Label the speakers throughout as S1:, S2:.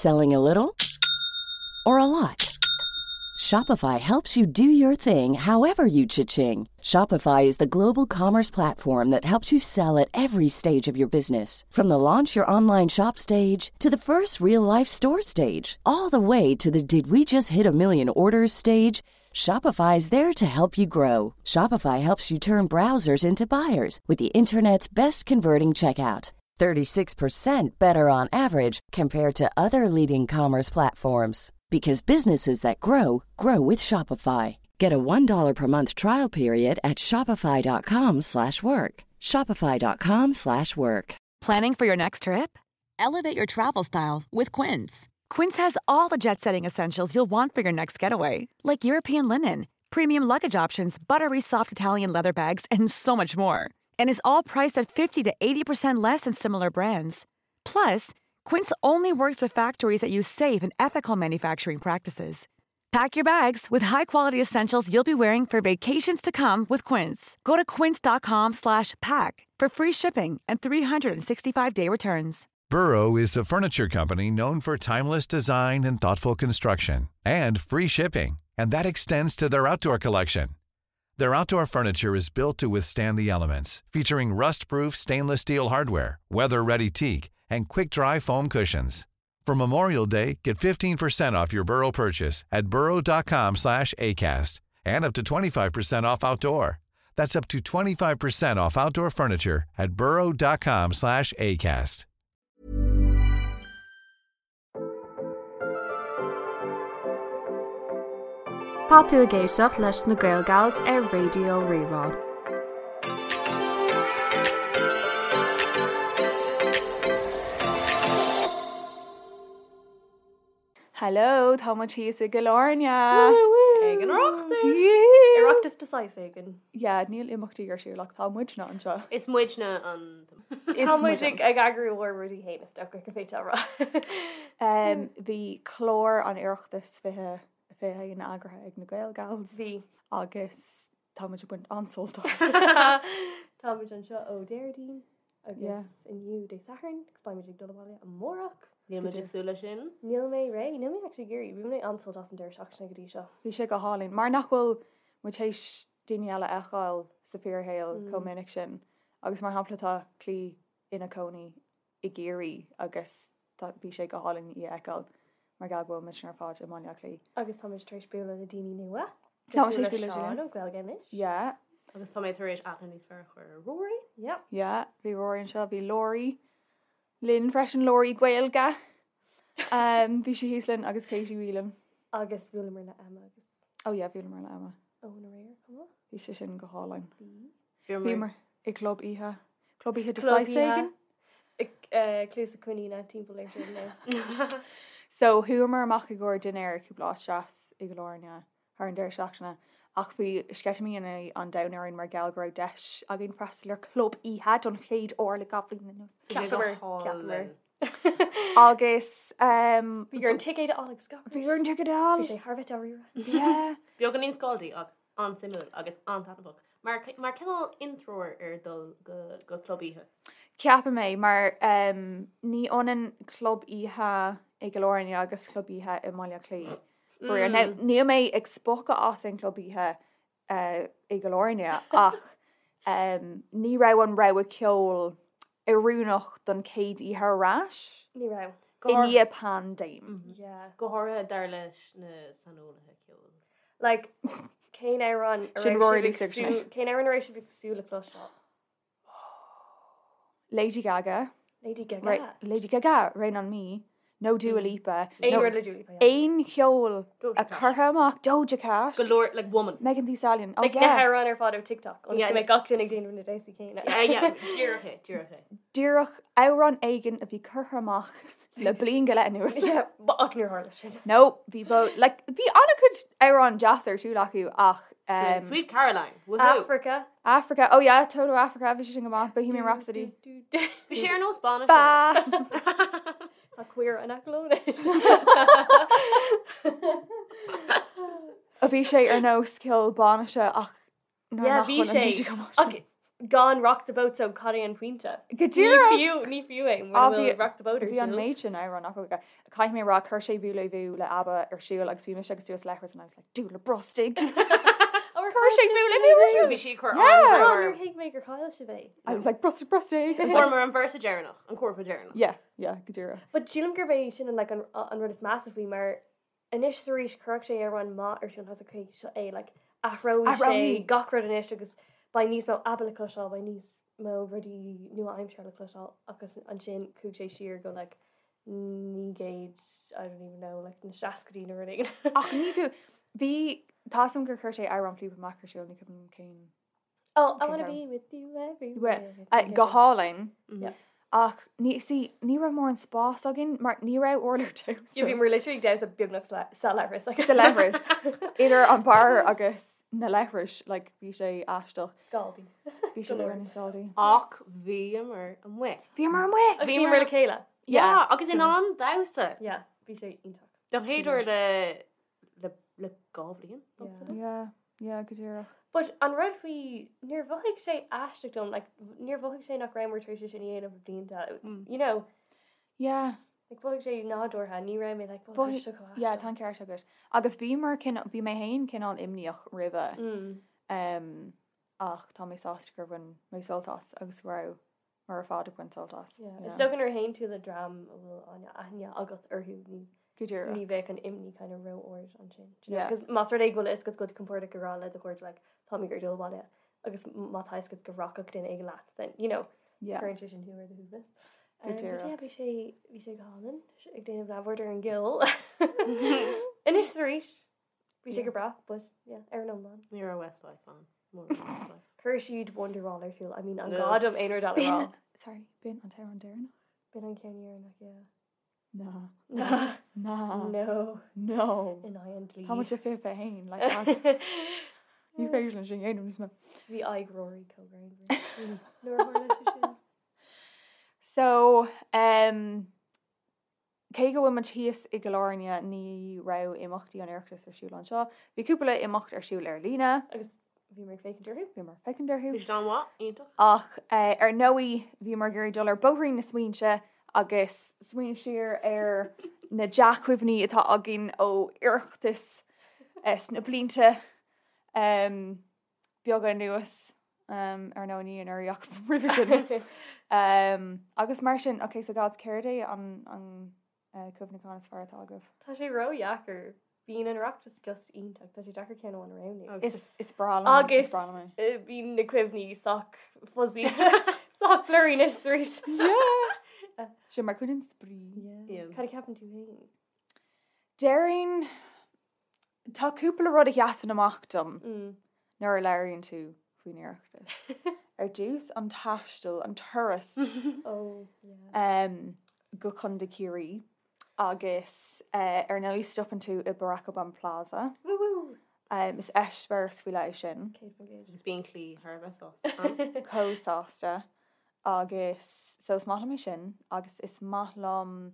S1: Selling a little or a lot? Shopify helps you do your thing however you cha-ching. Shopify is the global commerce platform that helps you sell at every stage of your business. From the launch your online shop stage to the first real life store stage, all the way to the did we just hit a million orders stage. Shopify is there to help you grow. Shopify helps you turn browsers into buyers with the internet's best converting checkout. 36% better on average compared to other leading commerce platforms because businesses that grow grow with Shopify. Get a $1 per month trial period at shopify.com/work. slash work. shopify.com/work. slash work.
S2: Planning for your next trip? Elevate your travel style with Quince. Quince has all the jet setting essentials you'll want for your next getaway, like European linen, premium luggage options, buttery soft Italian leather bags, and so much more. And is all priced at 50 to 80% less than similar brands. Plus, Quince only works with factories that use safe and ethical manufacturing practices. Pack your bags with high-quality essentials you'll be wearing for vacations to come with Quince. Go to quince.com slash pack for free shipping and 365-day returns.
S3: Burrow is a furniture company known for timeless design and thoughtful construction and free shipping, and that extends to their outdoor collection. Their outdoor furniture is built to withstand the elements, featuring rust-proof stainless steel hardware, weather-ready teak, and quick-dry foam cushions. For Memorial Day, get 15% off your Burrow purchase at burrow.com slash ACAST and up to 25% off outdoor. That's up to 25% off outdoor furniture at burrow.com slash ACAST.
S4: Tá tú ag éisteacht leis na Gael Gals ar Raidió Rí-Rá.
S5: Hello, tá muid thíos i gCill Airne.
S6: Ag an Oireachtas!
S7: Oireachtas de saghas éigin.
S5: Yeah, níl imeachtaí ar siúl ach tá muidne anseo.
S6: Is muidne an.
S7: Tá muid ag eagrú ár rudaí féin is dócha go bhféadfá a rá.
S5: Bhí clár an Oireachtais 2021 eagraithe ag na Gael Gals.
S7: Bhí.
S5: Agus tá muid ag baint an-sult as.
S7: Tá muid anseo ó Déardaoin agus inniu Dé Sathairn agus beidh muid ag dul abhaile amárach.
S6: Níl muid ag súil leis sin.
S7: Níl mé réidh, níl mé actually ag iarraidh, bhain mé an-sult as an deireadh seachtaine go dtí seo.
S5: Bhí sé go hálainn. Mar nach bhfuil muid théis daoine eile a fheiceáil sa fíorshaol chomh minic sin. Agus mar shampla tá Clí ina cónaí i gCiarraí agus tá, bhí sé go hálainn í a fheiceáil mar gheall go bhfuil muidne ar fad i mBaile Átha Cliath.
S7: Agus tá muid tar éis bualadh le daoine nua.
S5: Tá muid tar éis bualadh le
S7: Seán ó Gaeilge Anois.
S5: Yeah.
S6: Agus tá mé tar éis aithne níos fearr a chur ar Rory.
S7: Yeah.
S5: Yeah, bhí Rory anseo, bhí Laurie linn freisin, Laurie Gaeilge. Um, bhí sí thíos linn agus Katie Whelan.
S7: Agus bhuaileamar le Emma agus.
S5: Oh yeah, bhuaileamar le Emma.
S7: Eoin aréir, chomh maith.
S5: Bhí sé sin go hálainn.
S7: Bhí.
S5: Bhíomar i gclub oíche. Club oíche de saghas éigin.
S7: Cluasa coiníne timpeall air sin now.
S5: So chuamar amach i gcomhair dinnéir cúpla áit deas i gCill Airne thar an deireadh seachtaine ach bhí sceitimíní an domhain orainn mar gheall go raibh deis againn freastal ar chlub oíche don chéad uair le 2 bhliain anuas.
S7: Cheapamar, cheapamar.
S5: Agus
S7: Bhí orainn ticéad a fháil agus gach
S5: Bhí orainn ticéad a fháil.
S7: Bhí sé thar a bheith dáiríre.
S5: Yeah.
S6: Beagáinín scáildy ach an-suimiúil agus an-taitneamhach. Mar, mar cineál intreoir ar dul go, go club oíche.
S5: Ceapaim é, mar ní ionann club oíche i gCill Airne agus club oíche i mBaile Átha Cliath. Faraor. Now, níl mé ag spochadh as an club oíche i gCill Airne ach ní raibh an rogha ceoil oiriúnach don chéad oíche ar ais.
S7: Ní raibh.
S5: I ndiaidh paindéim.
S7: Yeah.
S6: Go háirithe dar leis na saineolaithe ceoil.
S7: Like, cén amhrán a
S5: Sin
S7: raibh
S5: Rory
S7: sibh ag
S5: Lisa
S7: súil,
S5: Sinéad.
S7: cén amhrán a raibh sibh ag súil le cloisteáil?
S5: Lady Gaga.
S7: Lady Gaga.
S5: Ra- Lady Gaga, Rain on Me, nó Dua Lipa.
S7: Aon
S5: nó
S7: rud le Dua Lipa, yeah.
S5: Aon cheol
S6: Doja
S5: a
S6: Cat.
S5: curtha amach, Doja Cat.
S6: Go leor, like woman.
S5: Megan Thee Stallion. Oh
S7: Like, na
S5: yeah.
S7: hamhráin ar fad ó TikTok, ionas
S6: Yeah.
S7: go mbeidh gach duine ag déanamh na damhsaí céanna.
S6: Yeah, yeah, díreach é, díreach é.
S5: Díreach amhrán éigin a bhí curtha amach le bliain go leith anuas.
S7: Yeah, but ach níor tharla sin.
S5: No, bhí bo, like, bhí an-chuid amhrán deas ar siúl acu ach um,
S6: Sweet Caroline, woohoo!
S7: Africa.
S5: Africa, oh yeah, Toto Africa, bhí sé sin go maith, Bohemian Rhapsody.
S6: Bhí sé ar nós bainise.
S5: Ba!
S7: Tá queer an aclón.
S5: Bhí sé ar nós ceol bainise ach nuair
S7: Yeah,
S5: nach
S7: bhí
S5: bhfuil an
S7: sé.
S5: DJ go maith
S7: Ach
S5: sin.
S7: Gan Rock the Boat so cad é an pointe?
S5: Go díreach!
S7: Ní fiú, ní fiú é mura bhfuil Rock the Boat ar
S5: Bhí an
S7: siúl.
S5: méid sin amhrán acu. Caithfidh mé a rá, chuir sé Voulez-Vous le ABBA ar siúl agus bhí mise agus tú sa leithreas and I was like, Dúil le brostaigh! Chuir sé Voulez-Vous ar siúl!
S6: Bhí sí ag cur
S5: Yeah!
S6: an-bhrú
S7: Níor
S6: orm.
S7: thuig mé gur chaill sibh é.
S5: I was like, brostaigh, brostaigh!
S6: Fuaireamar an véarsa deireanach, an cúrfa deireanach.
S5: Yeah, yeah, go díreach.
S7: But sílim gurb é sin an like an an rud is measa faoi mar anois is arís chuirfeadh sé amhrán maith ar siúl tá okay seo é like athróidh sé
S5: Athróidh.
S7: gach rud anois agus beidh níos mó ABBA le cloisteáil, beidh níos mó rudaí nua-aimseartha le cloisteáil agus ansin chuaigh sé siar go like 900 I don't even know like na seascaidí nó rud éigin.
S5: Ach ní fiú, bhí, tá a fhios agam gur chuir sé amhrán Fleetwood Mac ar siúl, ní cuimhin liom cén.
S7: Oh, I wanna
S5: Cén
S7: be with you everywhere.
S5: Go hálainn.
S7: Yeah.
S5: Ach ní, see, ní raibh mórán spás againn mar ní raibh urlár damhsa.
S7: Yeah, bhíomar literally ag damhsa beagnach sa leithreas. Like.
S5: Sa leithreas. Idir an bar agus na leithris, like, bhí sé aisteach.
S7: Scaldaí.
S5: Bhí sé leor scaldaí.
S6: Ach bhíomar amuigh.
S5: Bhíomar amuigh!
S7: Agus bhíomar le chéile.
S6: Yeah, agus in ann damhsa.
S7: Yeah, bhí sé iontach.
S6: Don chéad uair le le le 2 bhliain.
S7: Yeah.
S5: Yeah, yeah, go díreach.
S7: But an rud faoi, níor mhothaigh sé aisteach dom, like, níor mhothaigh sé nach rabhamar tar éis é sin a dhéanamh le blianta, you know,
S5: Yeah.
S7: like, mhothaigh sé nádúrtha, ní raibh mé like, oh, tá
S5: Mhothaigh-
S7: seo chomh
S5: Yeah,
S7: aisteach.
S5: tá an ceart agat. Agus bhíomar cineál, bhí mé féin cineál imníoch roimhe.
S7: Mm.
S5: Um, ach tá mé sásta gur bhain mé sult as agus go raibh muid ar fad ag baint sult as.
S7: Yeah. Is dócha nuair a théann tú le dream a bhfuil an-aithne agat orthu, ní
S5: Go díreach.
S7: ní bheadh an imní kind of ró-ard ansin. Do you know?
S5: Yeah.
S7: 'Cause más rud é go bhfuil a fhios agat go bhfuil tú compordach ag rá le do chairde like, tá mé ag dul abhaile agus má tá a fhios agat go rachadh duine éigin leat, then, you know,
S5: Yeah.
S7: cuireann sé sin thú ar do shuaimhneas.
S5: Go
S7: Um, but
S5: díreach.
S7: yeah, bhí sé bhí sé go hálainn ag déanamh neamhaird ar an gceol. Anois is arís, bhí sé go breá, but yeah, ar an iomlán.
S6: Ní raibh Westlife ann. Mór Westlife.
S7: Chuir siad Wonderwall ar siúl. I mean, an
S6: No.
S7: gá dom aon rud eile a
S5: B'in,
S7: rá.
S5: sorry, b'in an t-amhrán deireanach?
S7: B'in an ceann deireanach, yeah.
S5: Ná.
S7: No.
S5: Ná.
S7: No.
S5: No.
S7: In aghaidh an dlí.
S5: Tá muid 21, like, that's- ní féidir linn sin a dhéanamh níos mó.
S7: Bhí aghaidh Rory chomh greannmhar. Nuair a tharla sé sin.
S5: So, um, cé go bhfuil muid thíos i gCill Airne ní raibh imeachtaí an Oireachtais ar siúl anseo. Bhí cúpla imeacht ar siúl ar líne.
S7: Agus bhíomar ag féachaint orthu.
S5: Bhíomar ag féachaint orthu.
S6: Bhí siad an-mhaith, iontach.
S5: Ach eh, ar ndóigh bhíomar ag iarraidh dul ar bóithrín na smaointe agus smaoineamh siar ar na dea-chuimhní atá againn ó Oireachtas eh, sna blianta um, beaga anuas um, ar ndóigh ní anuraidh ach roimhe sin. Um, agus mar sin, ok, so gals, céard é an, an uh, cuimhneachán is fearr atá agaibh?
S7: Tá sé ró-dheacair. Bíonn an Oireachtas just iontach. Tá sé deacair ceann amháin a roghnú.
S5: Is, is breá liom, is
S7: Agus
S5: breá liom é.
S7: eh, bíonn na cuimhní sách fuzzy, sách blurry anois arís.
S5: Yeah! Sin mar chuid den spraoi.
S6: Yeah.
S7: Cad a cheapann tú féin?
S5: Déarfainn, tá cúpla rud a sheasann amach dom
S7: Mm.
S5: nuair a labhraíonn tú faoin Oireachtas. Ar dtús an taisteal, an turas
S7: Oh, yeah.
S5: um, go Contae Ciarraí agus uh, ar ndóigh stopann tú i Barack Obama Plaza.
S7: Woo woo!
S5: Um, is eispéireas faoi leith é sin.
S7: 100%.
S6: Agus bíonn Claí thar a bheith sásta.
S5: Chomh sásta agus so is maith liom é sin agus is maith liom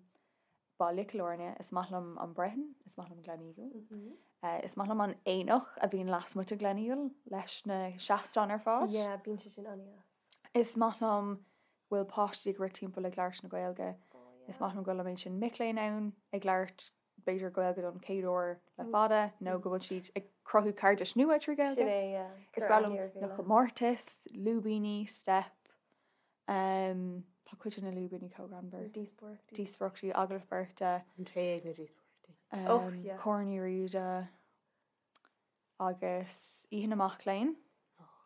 S5: baile Chill Airne, is maith liom an Brehon, is maith liom Gleneagle.
S7: Mhm.
S5: Uh, is maith liom an aonach a bhíonn lasmuigh de Gleneagle leis na seastáin ar fad.
S7: Yeah, bíonn sé sin an-deas.
S5: Is maith liom go bhfuil páistí ag rith timpeall ag labhairt na Gaeilge.
S7: Oh,
S5: Is maith liom go bhfuil an méid sin mic léinn ann ag labhairt b'fhéidir Gaeilge don chéad uair le fada nó go bhfuil siad ag cruthú cairdis nua trí
S7: Sin
S5: Gaeilge.
S7: é, yeah.
S5: Is
S7: Cur
S5: breá liom
S7: aithne ar
S5: na
S7: chéile.
S5: comórtais, lúibíní, steip. Um, tá cuid de na lúibíní chomh greannmhar.
S7: Díospóireachtaí.
S5: Díospóireachtaí, agallamh beirte,
S6: An tae ag na díospóireachtaí.
S7: Oh,
S5: um,
S7: yeah.
S5: Corn Uí Riada agus Oíche na Mac Léinn.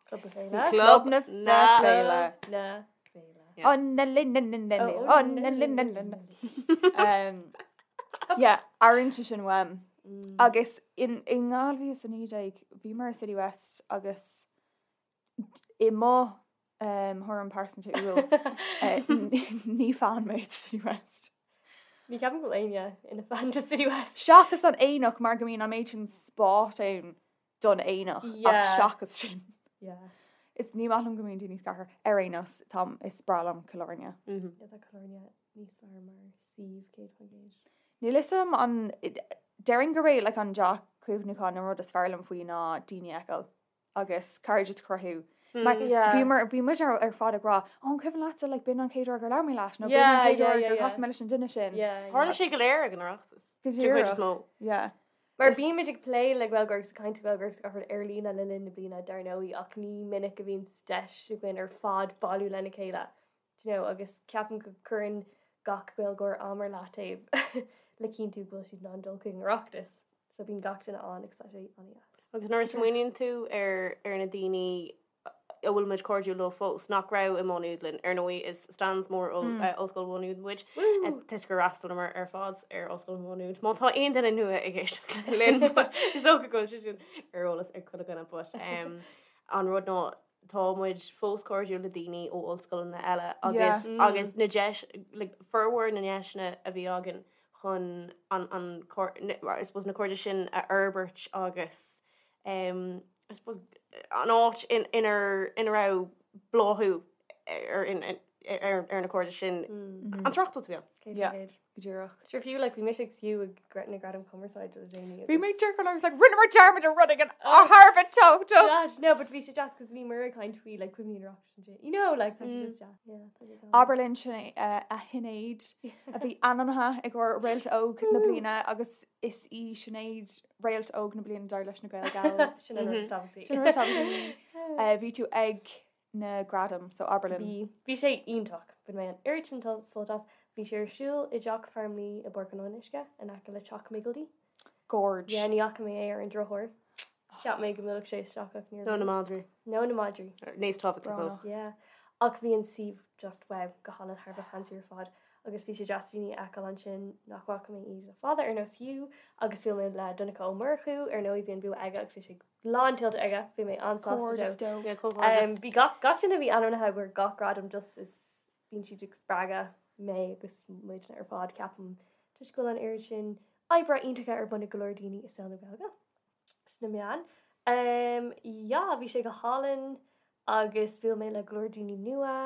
S7: Club na Féile.
S5: Club na
S6: na
S5: Féile.
S7: Na Féile.
S6: Yeah.
S5: Oh, na lin na na na
S7: Oh,
S5: oh, na lin na na na. Um, yeah, airíonn sé sin uaim.
S7: Mm.
S5: Agus in in 2019 bhíomar i City West agus d- i mo um, thuairim pearsanta úil eh, ní fan mé de City West.
S7: Ní ceapaim go bhfuil éinne ina fan de City West.
S5: Seachas an aonach mar go mbíonn an méid sin spáis ann don aonach ach
S7: Yeah.
S5: seachas sin.
S7: Yeah.
S5: Is ní maith liom go mbíonn daoine scartha ar aon nós tá is breá liom Cill Airne.
S6: Mhm.
S7: Yeah, tá Cill Airne níos fearr mar suíomh 100%.
S5: Níl fhios agam an déarfainn gurb é like, an dea-chuimhneachán an rud is fearr liom faoi ná daoine a fheiceáil agus cairdeas a chruthú. Mar
S7: Yeah.
S5: bhíomar bhí muid ar ar fad ag rá, "Ó, an cuimhin leatsa like b'in an chéad uair gur labhair mé leat nó b'in an
S7: Yeah,
S5: chéad
S7: yeah,
S5: uair
S7: yeah,
S5: gur
S7: yeah.
S5: chas mé leis an duine sin.
S7: Yeah, yeah.
S6: Tharla sé go léir ag an Oireachtas.
S5: Go
S6: Den chuid is
S5: díreach.
S6: mó.
S5: Yeah.
S7: Mar
S5: Is-
S7: bímid ag plé le Gaeilgeoirí agus ag caint le Gaeilgeoirí agus gach rud ar líne le linn na bliana dar ndóigh ach ní minic a bhíonn deis againn ar fad bailiú lena chéile do you know, agus ceapaim go cuireann gach Gaeilgeoir am ar leataobh le cinntiú go bhfuil siad in ann dul chuig an Oireachtas. So bíonn gach duine ann agus tá sé an-deas.
S6: Agus nuair a smaoiníonn tú ar ar na daoine a bhfuil muid cairdiúil leo fós nach raibh i Má Nuad linn, ar ndóigh is stans mór Ollscoil Mhá Nuad muid, toisc gur fhreastalamar ar fad ar Ollscoil Mhá Nuad. Má tá aon duine nua ag éisteacht linn, but is dócha go bhfuil sé sin ar eolas ag chuile dhuine, but an rud ná tá muid fós cairdiúil le daoine ó ollscoileanna eile agus agus na deis like, formhór na ndeiseanna a bhí againn chun an an I suppose na cairde sin a fhorbairt agus um, I suppose an áit in inar ina raibh bláthú ar in ar ar na cairde sin an tOireachtas a bhí ann.
S5: Yeah. Go díreach.
S7: Sure fiú like bhí mise agus Hugh ag na Gradaim Cumarsáide le déanaí.
S5: Bhí mé díreach I was like rinneamar dearmad ar rud éigin thar a bheith tábhachtach.
S7: Deas, no, but bhí sé deas cos bhíomar ag caint faoi like cuimhní an Oireachtais ansin. You know, like tá sé just deas. Yeah, tá sé go.
S5: Abair linn sin a Shinéad a bhí ainmnithe i gcomhair Réalt Óg na bliana agus is í Sinéad Réalt Óg na bliana dar leis na Gael Gals.
S7: Sin an rud is tábhachtaí.
S5: Sin an rud is tábhachtaí. Bhí tú ag na gradaim, so abair linn.
S7: Bhí. Bhí sé iontach. Bhain mé an oiread sin sult as. Bhí sé ar siúl i dTeach Farmleigh i bPáirc an Fhionnuisce, in aice le Teach Miggledy.
S5: Gorge.
S7: Yeah, ní fhaca mé é ar an drochuair. Cheap mé go mbuailfeadh sé isteach ach níor
S6: Nó na
S7: bhuail.
S6: madraí.
S7: Nó na madraí.
S6: Níos tábhachtaí fós.
S5: Brónach.
S7: Yeah. Ach bhí an suíomh just wow, go hálainn, thar a bheith fancy ar fad. Agus bhí sé deas daoine a fheiceáil ansin nach bhfaca mé iad le fada ar nós Hugh agus bhuail mé le Donncha Ó Murchú, ar ndóigh bhí an bua aige agus bhí sé lántuillte aige, bhí mé an-sásta dó.
S6: Yeah, comhghairdeas.
S7: Bhí gach gach duine a bhí ainmnithe i gcomhair gach gradam just is bíonn siad ag spreagadh mé agus muidne ar fad ceapaim toisc go bhfuil an oiread sin oibre iontacha ar bun ag go leor daoine i saol na Gaeilge sna meáin. Um, yeah, bhí sé go hálainn agus bhuail mé le go leor daoine nua.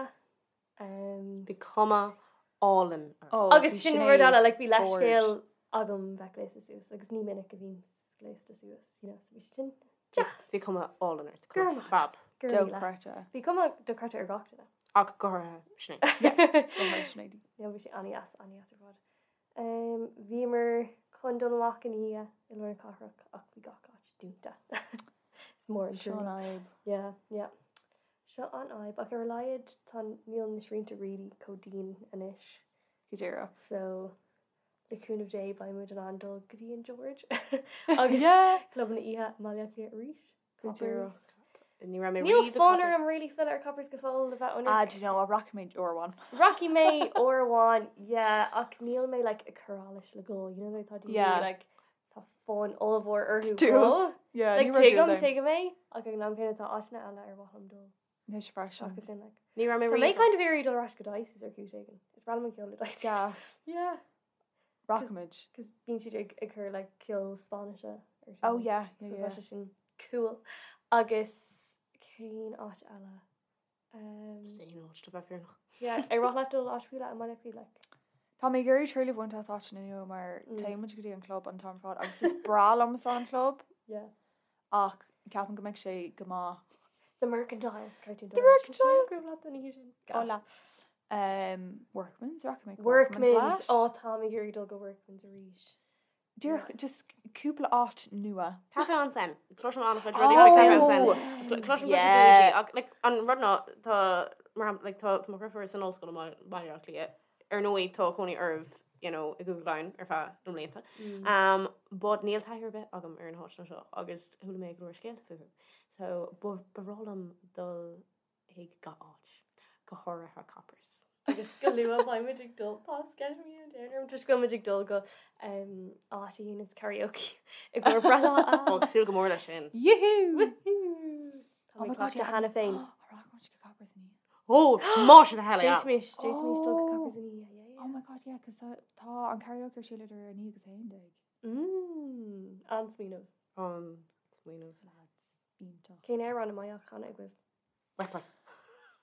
S7: Um,
S6: Bhí cuma álainn ort.
S5: Oh,
S7: Agus
S5: bhí
S7: sin rud eile,
S5: Sinéad
S7: like, bhí leithscéal
S5: gorge.
S7: agam bheith gléasta suas agus ní minic a bhím gléasta suas, you know, so bhí sé sin deas.
S6: Bhí cuma álainn ort.
S7: Go raibh maith.
S6: Fab.
S7: Go raibh míle.
S5: Dochreidte.
S7: Bhí cuma dochreidte ar gach duine.
S6: Ach go háirithe Sinéad.
S5: Go háirithe Sinéad.
S7: No, bhí sé an-deas, an-deas ar fad. Um, bhíomar chun dul amach in oíche i lár na cathrach ach bhí gach áit dúnta. Is mór an
S5: Seo an
S7: trua.
S5: fhadhb.
S7: Yeah, yeah. Seo an fhadhb, ach ar a laghad tá níl na srianta really chomh dian anois.
S5: Go díreach.
S7: So le cúnamh Dé beidh muid in ann dul go dtí an George agus
S5: Yeah.
S7: clubanna oíche i mBaile Átha Cliath arís.
S5: Go díreach.
S7: Coppers.
S6: Ní raibh mé
S7: Níl
S6: riamh i
S7: fonn
S6: Coppers.
S7: orm really filleadh ar Coppers go fóill le bheith
S5: Ah,
S7: ionraic.
S5: do you know, rachaidh mé uair amháin.
S7: Rachaidh mé uair amháin, yeah, ach níl mé like ag cur allais le gol, you know, tá daoine
S5: Yeah.
S7: like tá fonn ollmhór orthu
S5: Dúil.
S7: gol.
S5: Yeah,
S7: Like
S5: ní raibh
S7: tuigim,
S5: dúil ann.
S7: tuigim é, ach ag an am céanna tá áiteanna eile ar mhaith liom dul.
S5: Mise freisin.
S7: Seachas sin, like.
S6: Ní raibh mé
S7: Tá mé
S6: riamh.
S7: kind of iarraidh dul ar ais go Dicey's ar chúis éigin. Is breá liom an ceol le Dicey's.
S5: Gas.
S7: Yeah.
S5: Rachaimid.
S7: Cos bíonn siad ag ag cur like ceol Spáinnise ar siúl.
S5: Oh yeah, yeah,
S7: So
S5: yeah.
S7: tá sé sin cool. Agus cén áit eile? Um,
S6: Just aon áit le bheith fírinneach.
S7: yeah, ar mhaith leat dul áit faoi leith i mBaile Átha Cliath, like.
S5: Tá mé ag iarraidh triail a bhaint as áiteanna nua mar
S7: Mm.
S5: téann muid go dtí an club an t-am ar fad agus is breá liomsa an club
S7: Yeah.
S5: ach ceapaim go mbeidh sé go maith.
S7: The Mercantile. Cartoon
S5: The Mercantile.
S7: Go raibh leat an oíche sin. Gas.
S5: Hola. Um, Workman's, rachaidh mé go
S7: Workman's.
S5: leat.
S7: Ó, tá mé ag iarraidh dul go Workman's arís.
S5: Díreach just cúpla áit nua.
S6: Café en Seine. Cloisim an-chuid rudaí faoi Café en Seine.
S5: Oh!
S6: Cloisim
S5: Yeah.
S6: yeah. ach like, an rud ná tá mar shampla, like, tá tá mo dheirfiúr san ollscoil i mBaile Átha Cliath. Ar ndóigh tá cónaí oraibh you know, i gCúige Laighean ar feadh na mblianta. Um, but níl taithí ar bith agam ar na háiteanna seo agus chuala mé go leor scéalta fúthu. So ba ba bhreá liom dul chuig gach áit, go háirithe Coppers.
S7: Agus go luath beidh muid ag dul tá sceitimíní an domhain orm toisc go bhfuil muid ag dul go um, áit a dhéanann karaoke i gcomhair breithlá
S6: Ó, ag súil go mór leis sin.
S5: Yoo-hoo!
S7: Tá
S5: Oh
S7: mé
S5: my God,
S7: claite
S5: yeah.
S7: cheana féin.
S5: Rachaidh muid go Coppers inniu.
S6: Ó, má sin a heile.
S7: D'fhéadfaimis d'fhéadfaimis dul go
S5: Oh.
S7: Coppers inniu, yeah, yeah,
S5: Oh my God, yeah, cos tá tá an karaoke ar siúl idir 9 agus 11.
S7: yeah. Mm, an-smaoineamh.
S6: An smaoineamh.
S5: Lads, iontach.
S7: Cén amhrán a mbeadh á chanadh agaibh?
S6: Westlife.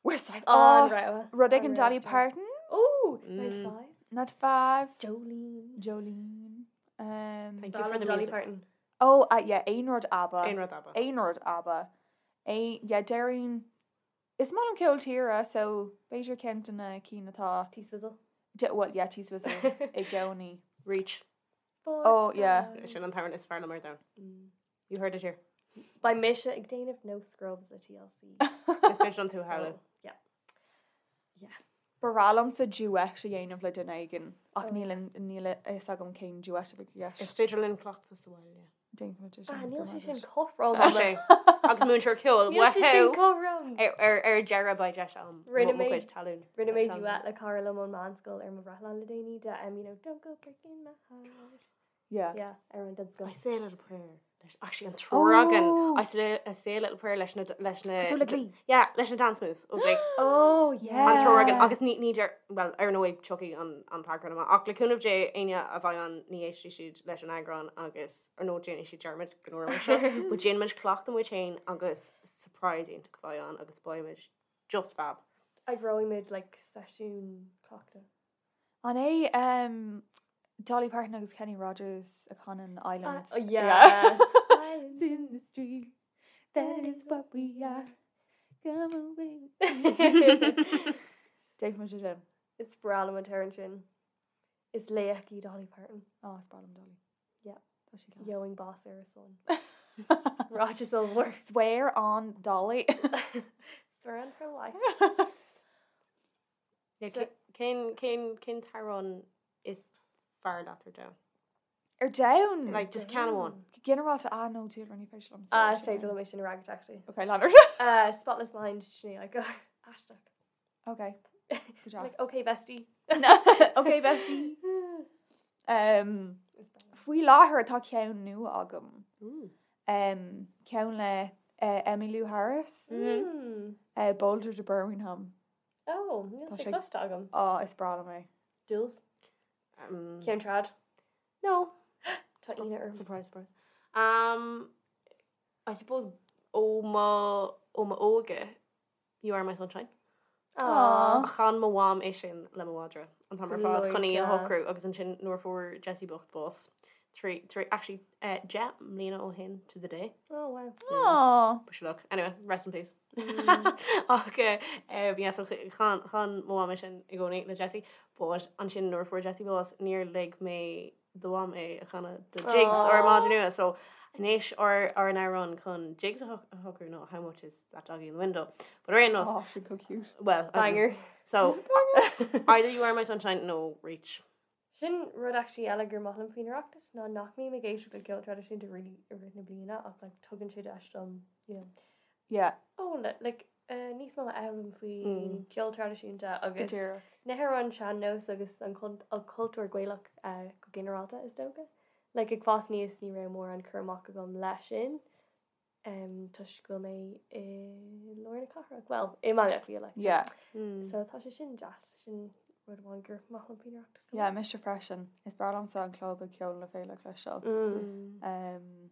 S5: Westlife.
S7: An
S5: Oh,
S7: rogha.
S5: rud
S7: An
S5: éigin
S7: rogha,
S5: Dolly
S7: Dolly.
S5: Parton.
S7: Oh,
S6: Mm.
S7: 9 to 5.
S5: Not 5.
S7: Jolene.
S5: Jolene. Um,
S6: Thank you for the
S7: Dolly
S6: music.
S7: Parton.
S5: oh, uh, yeah, Aon Rud ABBA.
S6: Aon Rud ABBA.
S5: Aon Rud ABBA. Aon, yeah, déarfainn. Is maith liom ceol tíre so b'fhéidir ceann de na cinn atá.
S7: T-Swizzle.
S5: Well yeah T-Swizzle i gcónaí.
S6: Reach.
S5: Oh yeah.
S6: Sin an t-amhrán is fearr liom ar domhan. You heard it here.
S7: Beidh mise ag déanamh No Scrubs le TLC.
S6: Is féidir liom tú a shamhlú.
S7: Yeah. Yeah.
S5: Ba bhreá liomsa duet a dhéanamh le duine éigin ach níl níl a fhios agam cén duet a bheadh i
S6: gceist. Is féidir linn cleachtadh sa bhaile.
S5: Déanfaimid é sin.
S7: Ah, níl sé sin cothrom.
S6: Tá sé. Agus múinteoir ceoil,
S7: Níl sé sin
S6: wahoo!
S7: cothrom.
S6: Ar, ar, ar deireadh beidh deis agam
S7: Rinne
S6: mo
S7: mé-
S6: chuid talún.
S7: Rinne mé duet le cara liom ón meánscoil ar mo bhreithlá le déanaí de um, you know, don't go breaking my heart.
S5: Yeah.
S7: Yeah, ar an
S6: I
S7: scoil.
S6: say a little prayer. Leis, actually an triúr againn.
S5: Oh.
S6: I say, I say a little prayer leis na, leis na...
S5: Cosúil le Glee.
S6: Yeah, leis na dance moves ó Glee.
S7: Oh, yeah.
S6: An triúr againn agus ní, ní deir, well, ar ndóigh tiocfaidh an, an t-eagrán amach. Ach le cúnamh Dé, éinne a bheidh ann ní éistfidh siad leis an eagrán agus ar ndóigh déanfaidh siad dearmad go ndúirt muid seo. But déanfaimid cleachtadh muid féin agus surprise iontach a bheidh ann agus beidh muid just fab.
S7: Eagróidh muid like seisiún cleachta.
S5: An é um, Dolly Parton agus Kenny Rogers a chanann Islands?
S7: Oh, yeah.
S5: Islands in the stream, that is what we are. Come away. Déanfaimid é sin.
S7: Is breá liom an t-amhrán sin. Is laoch í Dolly Parton.
S5: Oh, is breá liom Dolly.
S7: Yeah.
S5: Tá sí class.
S7: Gheobhainn bás ar a son. Ráiteas ollmhór.
S5: Swear on Dolly.
S7: Swear on her life.
S6: Yeah, cén, cén, cén t-amhrán is fearr leat ar domhan?
S5: Ar domhan?
S6: Like, just ceann amháin.
S5: Go ginearálta, ah, no, Deirdre, ní féidir liom
S7: Ah, is féidir liom é sin a fhreagairt, actually.
S5: Okay, Leonard.
S7: Uh, Spotless Mind, Sinéad Aiko. Aisteach.
S5: Okay. Good job.
S7: Like, okay, bestie.
S5: okay, bestie. Um, faoi láthair tá ceann nua agam. Um, ceann le uh, Emmylou Harris,
S7: Mm.
S5: uh, Boulder to Birmingham.
S7: Oh, níl
S5: Tá
S7: sé
S5: sé-
S7: cloiste agam.
S5: Á, is breá liom é.
S7: Jules?
S6: Um,
S7: Ceann trad?
S6: No.
S7: Tá ionadh orm.
S6: Surprise, surprise. Um, I suppose ó mo ó mo óige You Are My Sunshine.
S5: Aw.
S6: Chan mo mham é sin le mo mhadra an t-am ar fad chun í a
S7: Gleoite.
S6: shocrú agus ansin nuair a fuair Jessie bocht bás trí trí actually eh, 10 mbliana ó shin to the day.
S7: Oh, wow.
S5: Aw.
S6: Push luck. Anyway, rest in peace. Ach eh, eh, yeah, so chan chan mo mham é sin i gcónaí le Jessie, but ansin nuair a fuair Jessie bás níor lig mé do mham é a chanadh do Jigs ár madra nua. So anois ár ár n-amhrán chun Jigs a a shocrú ná how much is that doggy in the window. But ar aon nós,
S5: Oh, she's so cute.
S6: well, I don't know.
S7: Banger.
S6: So either you are my sunshine nó reach.
S7: Sin rud actually eile gur maith liom faoin Oireachtas ná nach mbím ag éisteacht le ceol traidisiúnta really i rith na bliana ach like tugann sé deis dom, you know,
S5: Yeah,
S7: oh, le, like, uh, níos mó a fhoghlaim faoi
S6: Mm.
S7: ceol traidisiúnta
S5: go
S7: agus
S5: díreach.
S7: na hamhráin sean-nós agus an cul- an cultúr Gaelach uh, go ginearálta is dócha. Like ag fás aníos ní raibh mórán cur amach agam leis sin um, toisc go bhfuil mé i lár na cathrach. Well, i mBaile Átha Cliath, like.
S5: Yeah.
S7: So tá sé sin deas, sin rud amháin gur maith liom faoin Oireachtas go
S5: Yeah,
S7: maith.
S5: mise freisin. Is breá liomsa an club ag Ceol na Féile a chloisteáil.
S7: Mm.
S5: Um,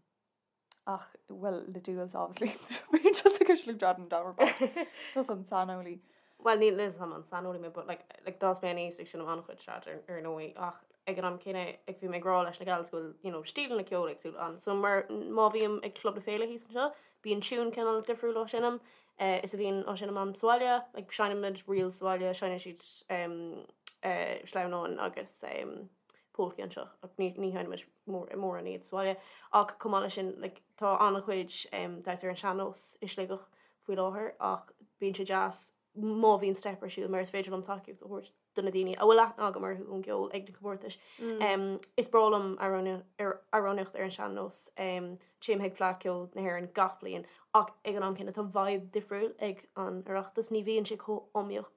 S5: ach, well, le Duals, obviously. Bíonn just ag cur trad an domhan ar fad. Just an saineolaí.
S6: Well, níl a fhios agam an saineolaí mé, but like, like d'fhás mé aníos ag seinm an-chuid trad ar, ar ndóigh, ach ag an am céanna ag bhí mé ag rá leis na gals go bhfuil, you know, stíleanna ceoil éagsúla ann. So mar má bhím ag Club na Féile thíos anseo, bíonn tiún cineál difriúil á seinm, eh, is a bhíonn á seinm agam sa bhaile, like seinnimid ríl sa bhaile, seinneann siad um, eh, sleamhnáin agus um, polcaí anseo, ach ní, ní sheinnimid mór, mórán iad sa bhaile. Ach chomh maith leis sin, like, tá an-chuid um, damhsa ar an sean-nós i Sligeach faoi láthair, ach bíonn sé deas má bhíonn steip ar siúl mar is féidir liom tacaíocht a thabhairt do na daoine a bhfuil aithne agam orthu ón gceol ag na comórtais. Um, is breá liom amhránaíocht ar amhránaíocht ar an sean-nós. Um, téim chuig Fleadh Cheoil na hÉireann gach bliain ach ag an am céanna tá vibe difriúil ag an Oireachtas. Ní bhíonn sé chomh iomaíoch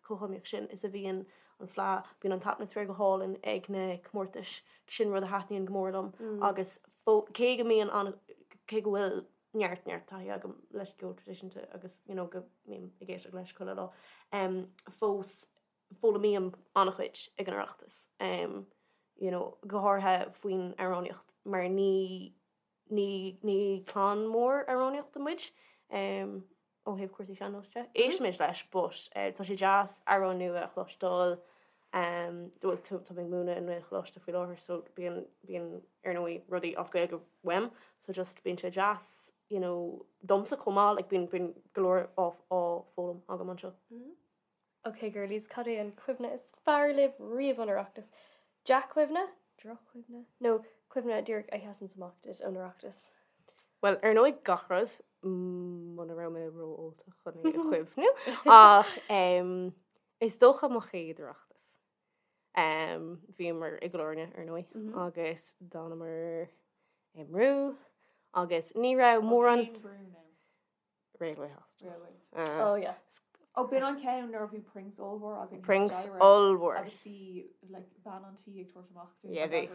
S6: chomh hiomaíoch sin is a bhíonn an Fleadh. Bíonn an t-atmaisféar go hálainn ag na comórtais. Sin rud a thaitníonn go mór liom agus fó- cé go mbíonn an cé go bhfuil neart neart taithí agam leis an gceol traidisiúnta agus you know, go mbím ag éisteacht leis chuile lá. Um, fós foghlaimím an-chuid ag an Oireachtas. Um, you know, go háirithe faoin amhránaíocht mar ní ní ní clann mór amhránaíochta muid um, ó thaobh cúrsaí sean-nós de. Éistimid leis, but uh, tá sé deas amhrán nua a chloisteáil um, well, tá tá mé ag múineadh i nGaelcholáiste faoi láthair, so bíonn bíonn ar ndóigh rudaí as Gaeilge uaim, so just bíonn sé deas you know, domsa chomh maith, like bíonn bíonn go leor á á foghlaim agam anseo.
S7: Ok girlies, cad é an cuimhne is fearr libh riamh ón Oireachtas? Dea-chuimhne? Droch-chuimhne? Nó cuimhne díreach a sheasann amach duit ón Oireachtas?
S6: Bhuel, ar ndóigh gach rud, muna raibh mé ró-ólta chun é a chuimhniú, ach is dócha mo chéad Oireachtas. Bhíomar i gCill Airne, ar ndóigh, agus d'fhanamar i mbrú agus ní raibh mórán...
S5: Cén brú now?
S6: Railway Hospital.
S5: Railway.
S7: Oh yeah.
S5: Ó, b'in an ceann nuair a bhí Prinks ollmhór againn.
S6: Prinks ollmhór.
S5: Agus bhí like, bean an tí ag tabhairt amach dúinn.
S6: Yeah, bhí.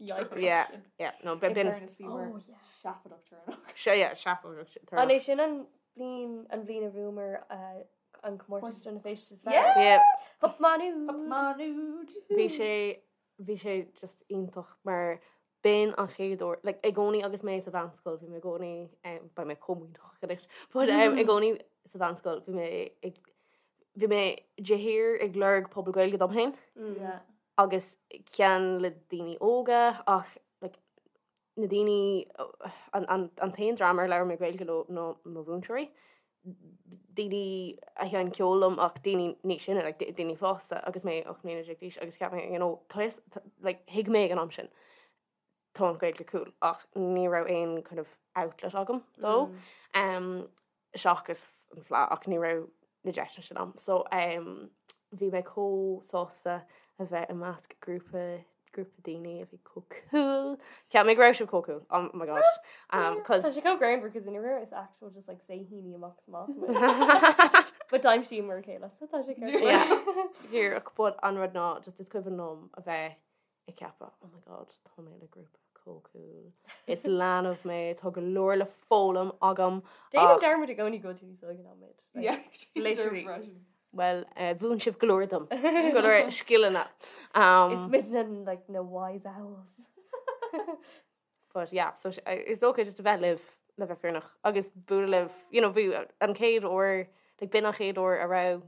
S7: Yikes.
S6: Yeah, yeah, no, b'in.
S5: In fairness, bhí
S7: Oh, yeah.
S5: seafóideach tuirseach.
S6: Seo, yeah, seafóideach
S7: An é sin an bliain an bhliain a bhuamar uh, an comórtas don bhféiste is fearr?
S5: Yeah!
S6: Yeah.
S7: Hup Maigh Nuad!
S5: Hup Maigh Nuad!
S6: Bhí sé, bhí sé just iontach mar b'in an chéad uair, like, i gcónaí agus mé sa mheánscoil, bhí mé i gcónaí, um, beidh mé chomh muiníneach anois, but um, i gcónaí sa mheánscoil bhí mé ag, bhí mé de shíor ag lorg pobal Gaeilge dom féin
S5: Yeah.
S6: agus ceann le daoine óga ach like, na daoine, an, an, an t-aon dream ar labhair mé Gaeilge leo ná mo mhúinteoirí. daoine a sheinn ceol liom ach daoine níos sine, like, daoine fásta agus mé 18 mbliana d'aois agus cheap mé, you know, tá fhios, like, thuig mé ag an am sin, tá an Ghaeilge cool ach ní raibh aon kind of outlet agam dó um, seachas an Fleadh ach ní raibh na deiseanna sin agam. So um, bhí mé chomh sásta a bheith i measc grúpa grúpa daoine a bhí chomh cool. Cheap mé go raibh sibh chomh cool. Oh my gosh. Um, cause
S7: Tá sé chomh greannmhar cos in raibh is actual just like saoithíní amach is amach muid. But d'aimsíomar a chéile so tá sé ceart.
S6: Yeah. Díreach, but an rud ná just is cuimhin liom a bheith ag ceapadh, oh my god, tá mé le grúpa chomh cool. Is leanbh mé, tá go leor le foghlaim agam.
S7: Déanaim
S6: ach-
S7: dearmad i gcónaí go bhfuil tú níos óige ná muid. Like,
S5: Yeah.
S7: Literally.
S6: Bhuel, mhúin sibh go leor dom, go leor scileanna.
S7: Is muid like na wise owls.
S6: But yeah, so is dócha just a bheith libh le bheith fírinneach agus bualadh libh, you know, bhí an chéad uair, like b'in an chéad uair a raibh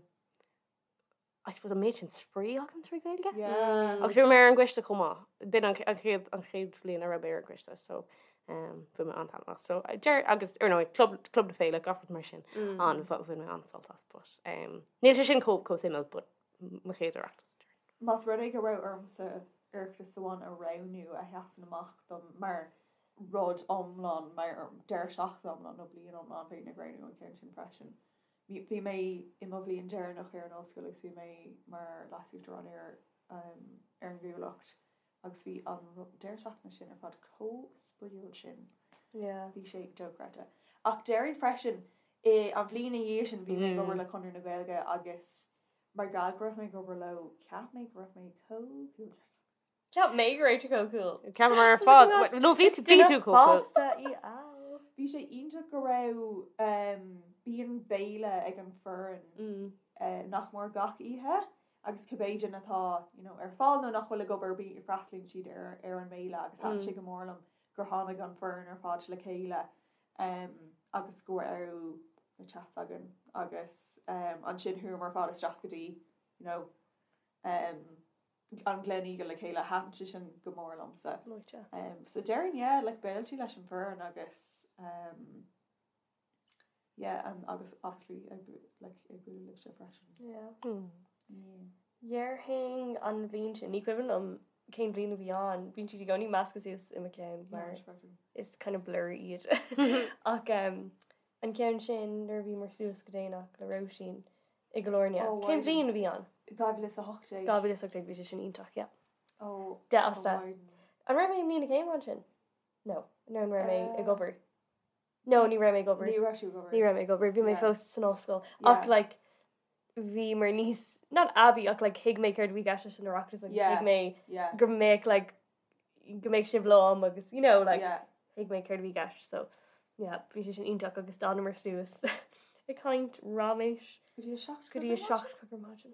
S6: I suppose an méid sin spraoi agam trí Ghaeilge.
S5: Yeah.
S6: Agus bhí mé ar an gcoiste chomh maith. B'in an chéad an chéad bhliain a raibh mé ar an gcoiste, so um, bhain mé an-taitneamh as. So, deir, agus ar ndóigh, club, club na féile, gach rud mar sin, mm. an, bhain mé an-sult as, but um, níl sé sin chomh chomh suimiúil, but mo chéad Oireachtas.
S5: Más rud é go raibh ormsa Oireachtas amháin a roghnú a sheasann amach dom mar rud iomlán, mar deireadh seachtaine iomlán nó bliain iomlán, bheinn ag roghnú an ceann sin freisin. Bhí mé i mo bhliain deireanach ar an ollscoil agus bhí mé mar leasuachtarán ar um, ar an gCuallacht Agus bhí an deireadh seachtaine sin ar fad chomh spraíúil sin.
S7: Yeah.
S5: Bhí sé dochreidte. Ach déarfainn freisin, i an bhliain ina dhiaidh sin bhí mé ag obair le Conradh na Gaeilge agus mar gheall go raibh mé ag obair leo, cheap mé go raibh mé chomh cool.
S7: Cheap mé go raibh tú chomh cool.
S6: Cheapamar ar fad. No, bhí tú bhí tú chomh cool.
S7: Fásta í al.
S5: Bhí sé iontach go raibh bíonn béile ag an foireann nach mór gach oíche agus cibé duine atá you know, ar fáil nó nach bhfuil ag obair bí freastalaíonn siad ar, ar an mbéile agus thaitin sé go mór liom gur tháinig an foireann ar fad le chéile um, agus go raibh na chats againn agus um, ansin chuamar ar fad isteach go dtí you know, um, an Gleneagle le chéile thaitin sé sin go mór liomsa. Um, so déarfainn yeah, like béiltí leis an bhfoireann agus um, Yeah and agus obviously ag like ag bualadh libhse freisin.
S7: Yeah.
S5: Yeah.
S7: Déarfainn an bhliain sin, ní cuimhin liom cén bhliain a bhí ann, bíonn siad i gcónaí measctha suas i mo cheann mar is kind of blur iad. Ach um, an ceann sin nuair a bhíomar suas go déanach le Róisín i gCill Airne.
S5: Oh,
S7: Cén bhliain a bhí ann?
S5: 2018.
S7: 2018 bhí sé sin iontach, yeah.
S5: Oh,
S7: 10 as 10.
S5: oh,
S7: An raibh mé i mbliain na céime ansin? No, no an raibh mé
S5: Uh,
S7: ag obair. No, ní raibh mé ag obair.
S5: Ní raibh tú ag obair.
S7: Ní raibh mé ag obair, bhí mé
S5: Yeah.
S7: fós san ollscoil.
S5: Yeah.
S7: Ach like bhí mar níos not aibí ach like thuig mé céard a bhí i gceist leis an Oireachtas agus
S5: Yeah.
S7: thuig mé
S5: Yeah.
S7: go mbeadh like go mbeadh sibh liom agus you know like
S5: Yeah.
S7: thuig mé céard a bhí i gceist so yeah bhí sé sin iontach agus d'fhanamar suas ag caint raiméis
S5: Go dtí a 7
S7: go dtí a 7 ar maidin.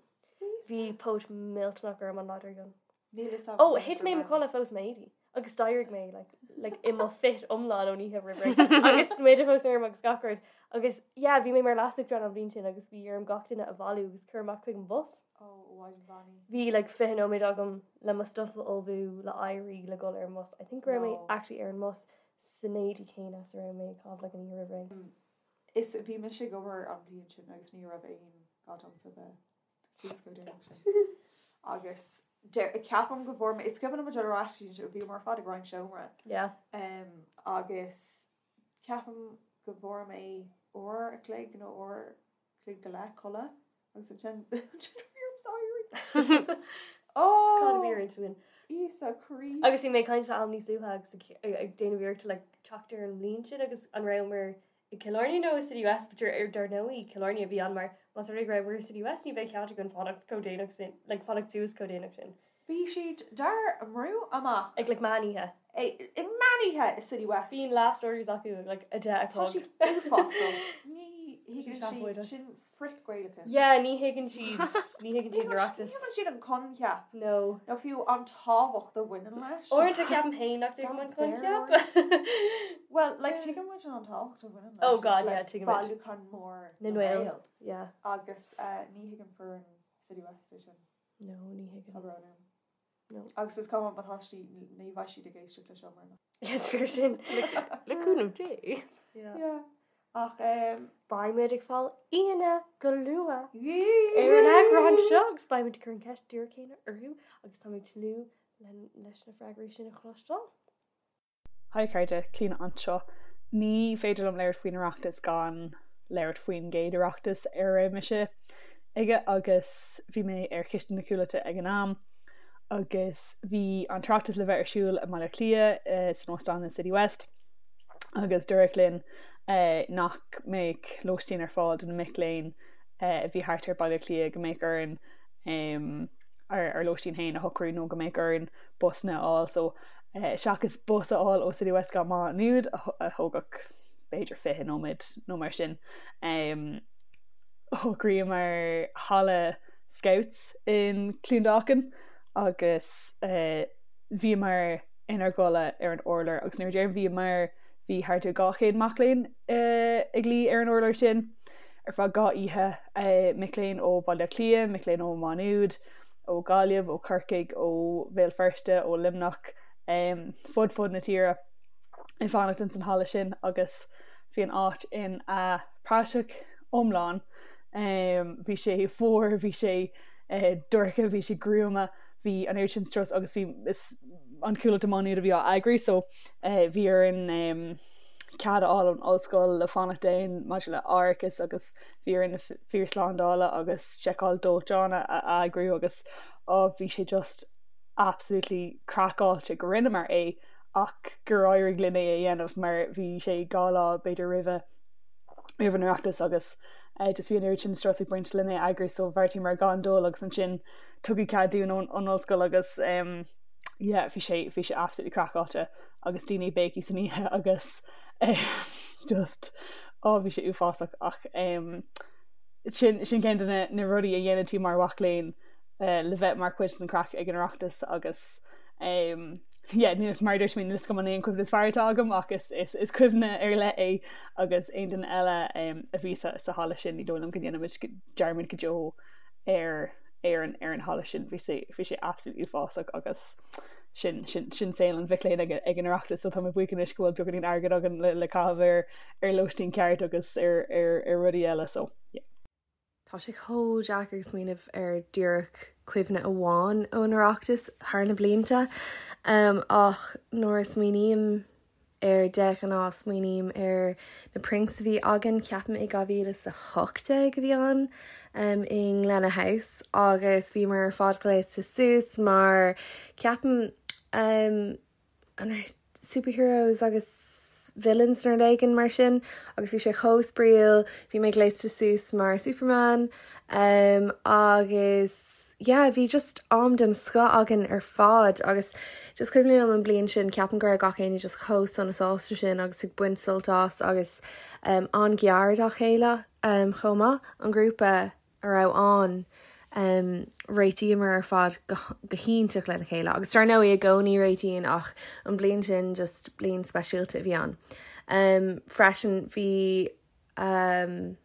S7: Bhí póit millteanach orm an lá dár gcionn.
S5: Níl fhios agam
S7: Ó,
S5: conas
S7: thit
S5: a
S7: mé i mo
S5: raibh.
S7: chodladh fós m'éadaí agus d'éirigh mé like, like, i mo fit iomlán ón oíche roimh ré agus smideadh fós orm agus gach rud. Agus yeah, bhí mé mar leasuachtarán an bhliain sin agus bhí orm gach duine a bhailiú agus cur amach chuig an bhus.
S5: Ó, Mhaighdean Bheannaithe.
S7: Bhí like 20 nóiméad agam le mo stuff a ullmhú, le éirí, le dul ar an mbus. I think go raibh mé
S5: No.
S7: actually ar an mbus San éadaí céanna is a raibh mé ag caitheamh like an oíche roimh ré.
S5: Is bhí mise ag obair an bhliain sin agus ní raibh aon ghá domsa bheith suas chomh déanach sin. Agus ceapaim go bhfuair mé, is cuimhin liom dul ar ais go dtí an, bhíomar ar fad ag roinnt seomra.
S7: Yeah.
S5: Agus ceapaim go bhfuair mé uair a chloig nó uair a chloig go leith codladh agus ansin ansin bhí orm éirí.
S7: Ó! Cad a bhí ar intinn?
S5: Íosa Críost.
S7: Agus bhí mé ag caint le Alan níos luaithe agus ag déanamh iarracht like teacht ar an mbliain sin agus an rabhamar i Cill Airne nó i City West but ar dar ndóigh Cill Airne a bhí ann mar más rud é go rabhamar i City West ní bheadh cead againn fanacht chomh déanach sin like fanacht suas chomh déanach sin.
S5: Bhí siad dár mbrú amach.
S7: Ag like meán oíche.
S5: Ag meán oíche i City West.
S7: Bíonn last orders acu ag like 10 a
S5: Tá
S7: chlog.
S5: siad uafásach. Ní thuigeann siad sin frith-Ghaelachas.
S7: Yeah, ní thuigeann siad, ní thuigeann siad an Oireachtas.
S5: Ní thuigeann siad an coincheap.
S7: No.
S5: Nó fiú an tábhacht a bhaineann leis.
S7: Uaireanta ceapaim féin nach dtuigim an coincheap.
S5: Well, like, tuigeann muid an tábhacht a bhaineann leis.
S7: Oh God, yeah, tuigim muid.
S5: Bailiúchán mór
S7: na nGael. Yeah.
S5: Agus ní thuigeann foireann City West é sin.
S7: No, ní thuigeann.
S5: Tá brón orm.
S7: No.
S5: Agus is cuma má tá siad, ní bheidh siad ag éisteacht leis seo mar.
S7: Is fíor sin.
S6: Le cúnamh Dé.
S7: Yeah.
S5: Yeah. Ach um,
S7: Beimid ag fáil aíonna go luath ar an eagrán seo agus beimid ag cur an ceist díreach céanna orthu agus táimid ag tnúth leis na freagraí sin a chloisteáil.
S8: Hi a chairde, Clíona anseo. Ní féidir liom labhairt faoin Oireachtas gan labhairt faoin gcéad Oireachtas ar raibh mise aige agus bhí mé ar chiste na Cuallachta ag an am agus bhí an tOireachtas le bheith ar siúl i mBaile Átha Cliath san óstán in City West agus dúradh linn nach mbeadh lóistín ar fáil do na mic léinn a bhí thart ar Baile Átha Cliath, go mbeadh orainn ár lóistín féin a shocrú nó go mbeadh orainn busanna a fháil so seachas bus a fháil ó City West go Má Nuad a thógfadh b'fhéidir 20 nóiméad nó mar sin. Shocraíomar halla Scouts in Clondalkin agus bhíomar inár gcodladh ar an urlár agus nuair a deirim bhíomar bhí thart ar 200 mac léinn ag luí ar an urlár sin ar feadh 2 oíche, mic léinn ó Bhaile Átha Cliath, mic léinn ó Má Nuad, ó Ghaillimh, ó Chorcaigh, ó Bhéal Feirste, ó Luimneach, fud fud na tíre ag fanacht ins an halla sin agus bhí an áit ina praiseach iomlán. Bhí sé fuar, bhí sé dorcha, bhí sé gruama, bhí an oiread sin strus agus bhí an Chuallacht i Má Nuad a bhí á eagrú so bhí orainn cead a fháil ón ollscoil le fanacht ann maidir le árachas agus bhí orainn na fir slándála agus seiceáil dóiteáin a eagrú agus á bhí sé just absolutely craiceáilte go rinneamar é ach gur éirigh linn é a dhéanamh mar bhí sé 2 lá b'fhéidir roimhe roimh an Oireachtas agus just bhí an oiread sin strus ag baint lena eagrú so bheartaíomar gan dul agus ansin tugadh cead dúinn ón ollscoil agus um, yeah, bhí sé bhí sé absolutely craiceáilte agus daoine ag béicíl san oíche agus just á bhí sé uafásach ach sin sin ceann de na na rudaí a dhéanann tú mar mhac léinn le bheith mar chuid den chraic ag an Oireachtas agus yeah, mar a dúirt mé níl a fhios agam an é an cuimhne is fearr atá agam ach is is is cuimhne ar leith é agus aon duine eile a bhí sa sa halla sin ní dóigh liom go ndéanfaimid dearmad go deo ar ar an ar an halla sin bhí sé bhí sé absolutely uafásach agus sin sin sin saol an mhic léinn ag ag an Oireachtas so tá mé buíoch anois go bhfuil beagáinín airgid againn le le caitheamh ar ar lóistín ceart agus ar ar ar rudaí eile so yeah.
S9: Tá sé chomh deacair smaoineamh ar díreach cuimhne amháin ón Oireachtas thar na blianta ach nuair a smaoiním air de ghnáth smaoiním ar na prinks a bhí againn, ceapaim i 2018 a bhí ann i nGlenagh House agus bhíomar ar fad gléasta suas mar ceapaim an raibh superheroes agus villains nó rud éigin mar sin agus bhí sé chomh spraíúil, bhí mé gléasta suas mar Superman um, agus yeah bhí just am den scoth againn ar fad agus just cuimhin liom an bliain sin ceapaim go raibh gach éinne just chomh sona sásta sin agus ag baint sult as agus um, an-ghar dá chéile um, chomh maith an grúpa a raibh ann um, réitíomar ar fad go, go hiontach lena chéile agus dar ndóigh i gcónaí réitíonn ach an bliain sin just bliain speisialta a bhí ann. Um, freisin bhí um,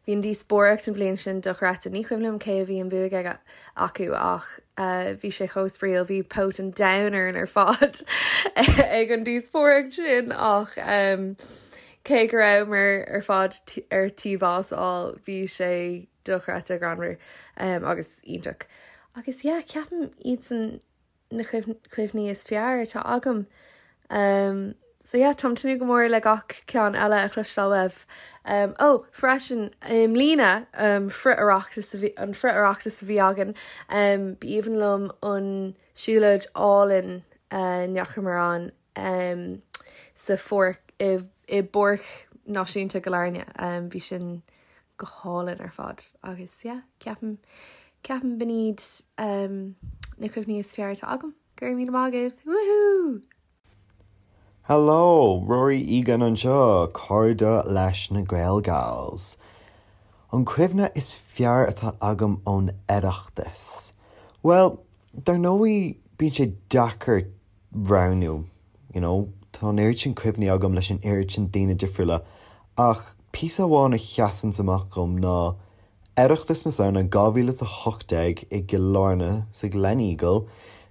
S9: Bhí an díospóireacht an bhliain sin dochreidte. Ní cuimhin liom cé a bhí an bhuaidh aige acu ach bhí sé chomh spraíúil. Bhí póit an domhain orainn ar fad ag an díospóireacht sin ach cé go rabhamar ar fad ar tí bás a fháil bhí sé dochreidte greannmhar agus iontach. Agus yeah, ceapaim iadsan na cuimhní is fearr atá agam. So yeah, táim tnúth go mór le gach ceann eile a chloisteáil uaibh. Ó, freisin, i mbliana, frith-Oireachtas a bhí, an frith-Oireachtas a bhí againn, b'aoibhinn liom an siúlóid álainn a ndeachamar ann sa pháirc, i i bPáirc Náisiúnta Chill Airne. Bhí sin go hálainn ar fad agus yeah, ceapaim, ceapaim b'in iad na cuimhní is fearr atá agam. Go raibh míle maith agaibh! Woohoo!
S10: Hello, Rory Egan anseo, cairde leis na Gaelgals. An cuimhne is fearr atá agam ón Oireachtas? Bhuel, dar ndóigh bíonn sé deacair roghnú, you know, tá an oiread sin cuimhní agam leis an oiread sin daoine difriúla ach píosa amháin a sheasanns amach dhom ná Oireachtas na Samhna 2018 i gCill Airne sa Gleneagle.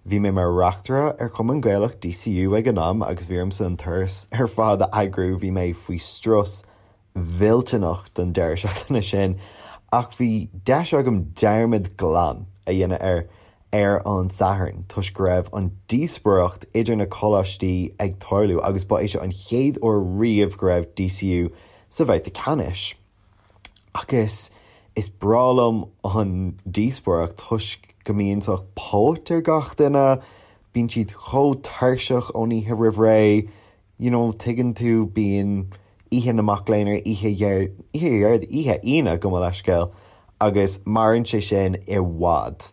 S10: Bhí mé mar reachtaire ar Chumann Gaelach DCU ag an am agus bhí ormsa an turas ar fad a eagrú, bhí mé faoi strus mhillteanach don deireadh seachtaine sin ach bhí deis agam dearmad glan a dhéanamh air ar an Satharn toisc go raibh an díospóireacht idir na coláistí ag tarlú agus ba é seo an chéad uair riamh go raibh DCU sa bhabhta ceannais. Agus is breá liom an díospóireacht toisc go mbíonn sórt póit ar gach duine, bíonn siad chomh tuirseach ón oíche roimh ré, you know, tuigeann tú, bíonn oíche na mac léinn ar oíche Dhéard, oíche Dhéardaoin, oíche Aoine, gabh mo leithscéal, agus maireann sé sin i bhfad.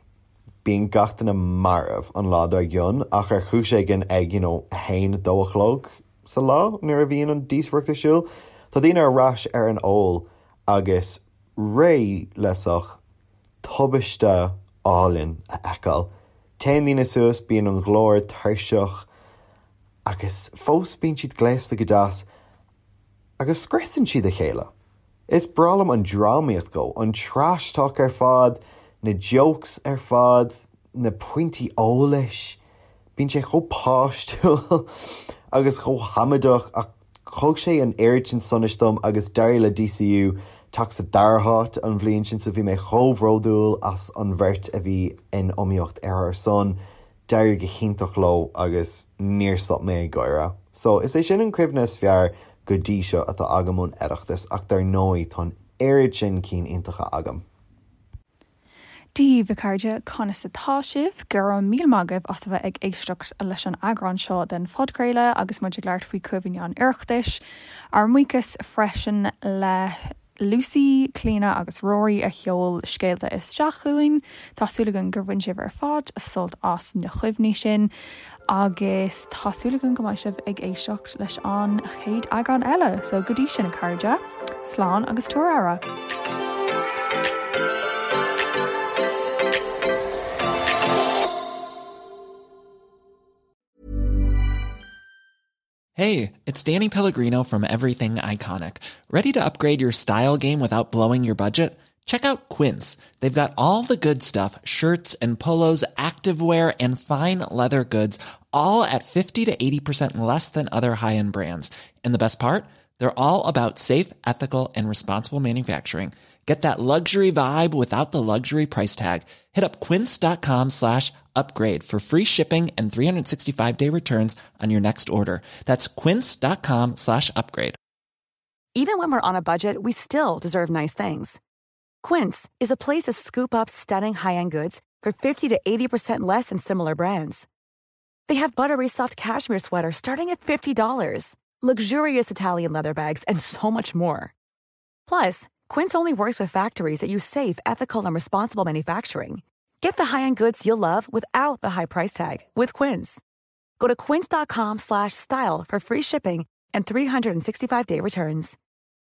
S10: Bíonn gach duine marbh an lá dár gcionn ach ar chúis éigin ag, you know, a haon, a dó a chlog sa lá nuair a bhíonn an díospóireacht ar siúl, tá daoine ar ais ar an ól agus réidh le sórt tubaiste álainn a fheiceáil. Téann daoine suas, bíonn an glór tuirseach, Agus fós bíonn siad gléasta go deas agus scriosann siad a chéile. Is breá liom an drámaíocht dhó, an trash talk ar fad, na jokes ar fad, na pointí eolais. Bíonn sé chomh páistiúil agus chomh hamaideach ach thug sé an oiread sin sonais dom agus d'éirigh le DCU teacht sa dara háit an bhliain sin so bhí mé chomh bródúil as an bheirt a bhí in iomaíocht ar ár son. D'éirigh go hiontach leo agus níor stop mé ag gáire. So, is é sin an cuimhne is fearr go dtí seo atá agam ón Oireachtas ach dar ndóigh tá an oiread sin cinn iontacha agam.
S5: Dia daoibh a chairde, conas atá sibh? Go raibh míle maith agaibh as a bheith ag éisteacht leis an eagrán seo den phodchraoladh agus muid ag labhairt faoi chuimhní an Oireachtais. Ár mbuíochas freisin le. Lucy, Clíona agus Rory a sheol scéalta isteach chugainn. Tá súil againn gur bhain sibh ar fad sult as na cuimhní sin agus tá súil againn go mbeidh sibh ag éisteacht leis an chéad eagrán eile. So go dtí sin a chairde, slán agus tabhair aire.
S11: Hey, it's Danny Pellegrino from Everything Iconic. Ready to upgrade your style game without blowing your budget? Check out Quince. They've got all the good stuff shirts and polos, activewear, and fine leather goods, all at 50 to 80% less than other high end brands. And the best part? They're all about safe, ethical, and responsible manufacturing. Get that luxury vibe without the luxury price tag. Hit up quince.com slash upgrade for free shipping and 365 day returns on your next order. That's quince.com slash upgrade.
S2: Even when we're on a budget, we still deserve nice things. Quince is a place to scoop up stunning high-end goods for 50 to 80% less than similar brands. They have buttery soft cashmere sweaters starting at $50, luxurious Italian leather bags, and so much more. Plus, Quince only works with factories that use safe, ethical, and responsible manufacturing. Get the high-end goods you'll love without the high price tag with Quince. Go to quince.com slash style for free shipping and 365-day returns.